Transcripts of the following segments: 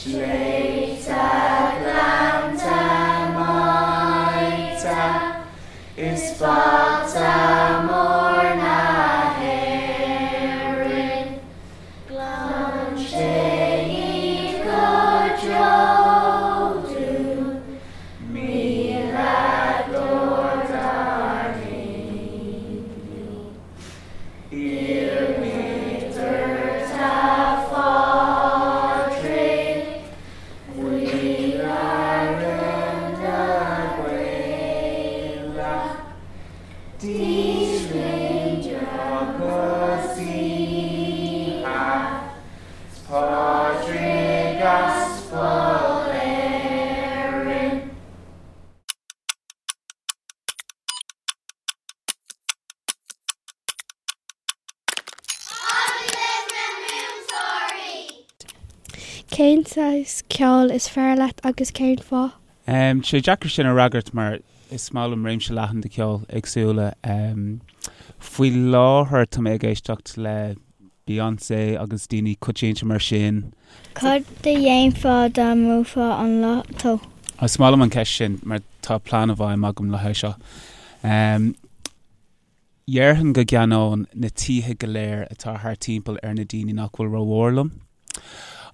Sléibhte gleannta maíte is bata mór na hÉireann, Glan sé iad go deo dúinn, Míoladóir dár ndaoine. Iarraimid ort a Phádraig, Maoláire na Gaeilge, Dísmaoin agus oíche, 's Pádraig Aspal Éireann. Agallamh na Múinteoirí! Cén saghas ceoil is fearr leat agus cén fáth? Tá sé deacair sin a fhreagairt mar is maith liom réimse leathan de cheol éagsúla. Faoi láthair tá mé ag éisteacht le Beyoncé agus daoine coitianta mar sin. Cad a dhéanfá dá mbuafá an lotto? Is maith liom an ceist sin mar tá plean i bhfeidhm agam le haghaidh seo. Dhéarfainn go gceannóinn na tithe go léir atá thart timpeall ar na daoine nach bhfuil rómhór liom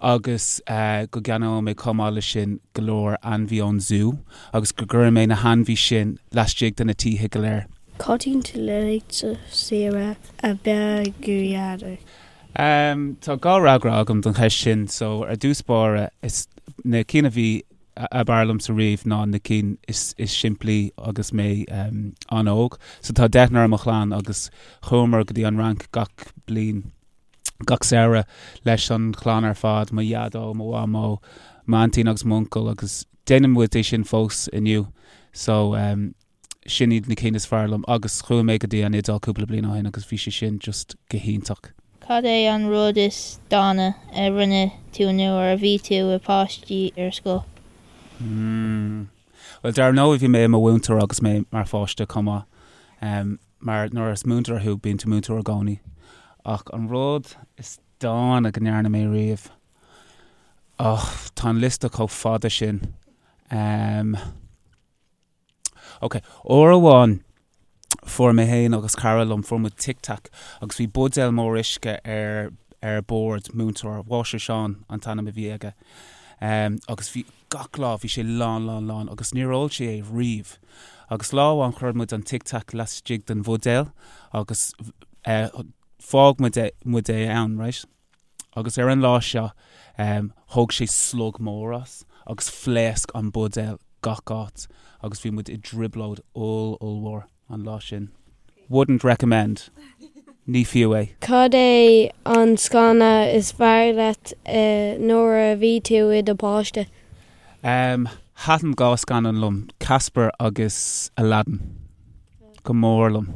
agus go gceannóidh mé chomh maith leis sin go leor ainmhí ón zú agus go gcuirfidh mé na hainmhí sin laistigh de na tithe go léir. Cad iad na laethanta saoire ab fhearr go dhearna? Tá dhá fhreagra agam don cheist sin. So ar dtús báire is na cinn a bhí ab fhearr liomsa riamh ná na cinn is simplí agus mé an-óg. So tá deichniúr i mo chlann agus chuamar go dtí an Fhrainc gach bliain, gach samhradh leis an chlann ar fad, mo dhaideo, mo mhamó, m'aintín agus m'uncail agus déanann muid é sin fós inniu. So sin iad na cinn is fearr liom agus chuaigh mé go dtí an Iodáil cúpla bliain ó shin agus bhí sé sin just go hiontach. Cad é an rud is dána a rinne tú nuair a bhí tú i páiste ar scoil? Mm. Bhuel, dar ndóigh bhí mé i mo mhúinteoir agus mé mar pháiste chomh maith. Um, mar nuair is múinteoir thú bíonn tú múinteoir i gcónaí. Ach an rud is dána go ndearna mé riamh, oh, tá an liosta chomh fada sin. Um, Ok, uair amháin fuair mé féin agus cara liom, fuair muid Tic Tac agus bhí buidéal mór uisce ar ar bord, múinteoir, Máistir Seán an t-ainm a bhí aige, agus bhí gach lá bhí sé lán lán lán agus níor ól sé é riamh. Agus lá amháin chuir muid an Tic Tac laistigh den bhuidéal agus fág muid é muid é ann, right? Agus ar an lá seo thóg sé slog mór as agus phléasc an buidéal gach áit agus bhí muid i dtrioblóid oll ollmhór an lá sin. Wouldn't recommend. Ní fiú é. Cad é an scannán is fearr leat nuair a bhí tú i do pháiste? Thaitin dhá scannán liom, Casper agus Aladdin go mór liom.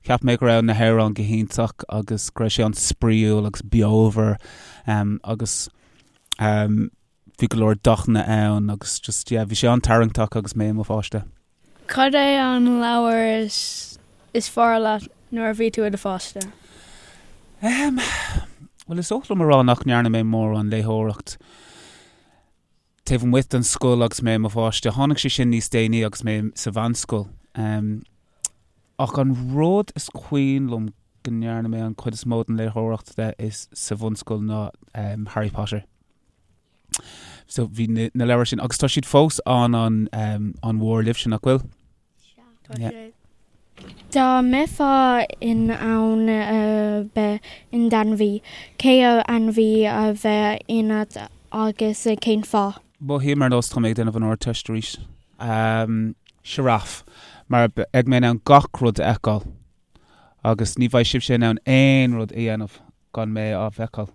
Cheap mé go raibh na hamhráin go hiontach agus go raibh sé an-spraíúil agus beomhar agus bhí go leor dathanna ann agus just yeah bhí sé an-tarraingteach agus mé i mo pháiste. Cad é an leabhar is fearr leat nuair a bhí tú i do pháiste? Bhuel is oth liom a rá nach ndearna mé mórán léitheoireacht. Taobh amuigh den scoil agus mé i mo pháiste. Tháinig sé sin níos déanaí agus mé sa mheánscoil. Ach an rud is cuimhin liom go ndearna mé an chuid is mó den léitheoireacht de is sa bhunscoil ná Harry Potter. So bhí na leabhair sin agus tá siad fós an an an-mhór libhse nach bhfuil? Tá sé. Dá mbeifeá in ann a bheith in d'ainmhí, cén ainmhí a bheadh ionat agus cén fáth? Mothaím ar nós tá mé ag déanamh an Ardteist arís. Sioráf. Mar beidh mé in ann gach rud a fheiceáil. Agus ní bheidh sibhse in ann aon rud a dhéanamh gan mé á bhfeiceáil.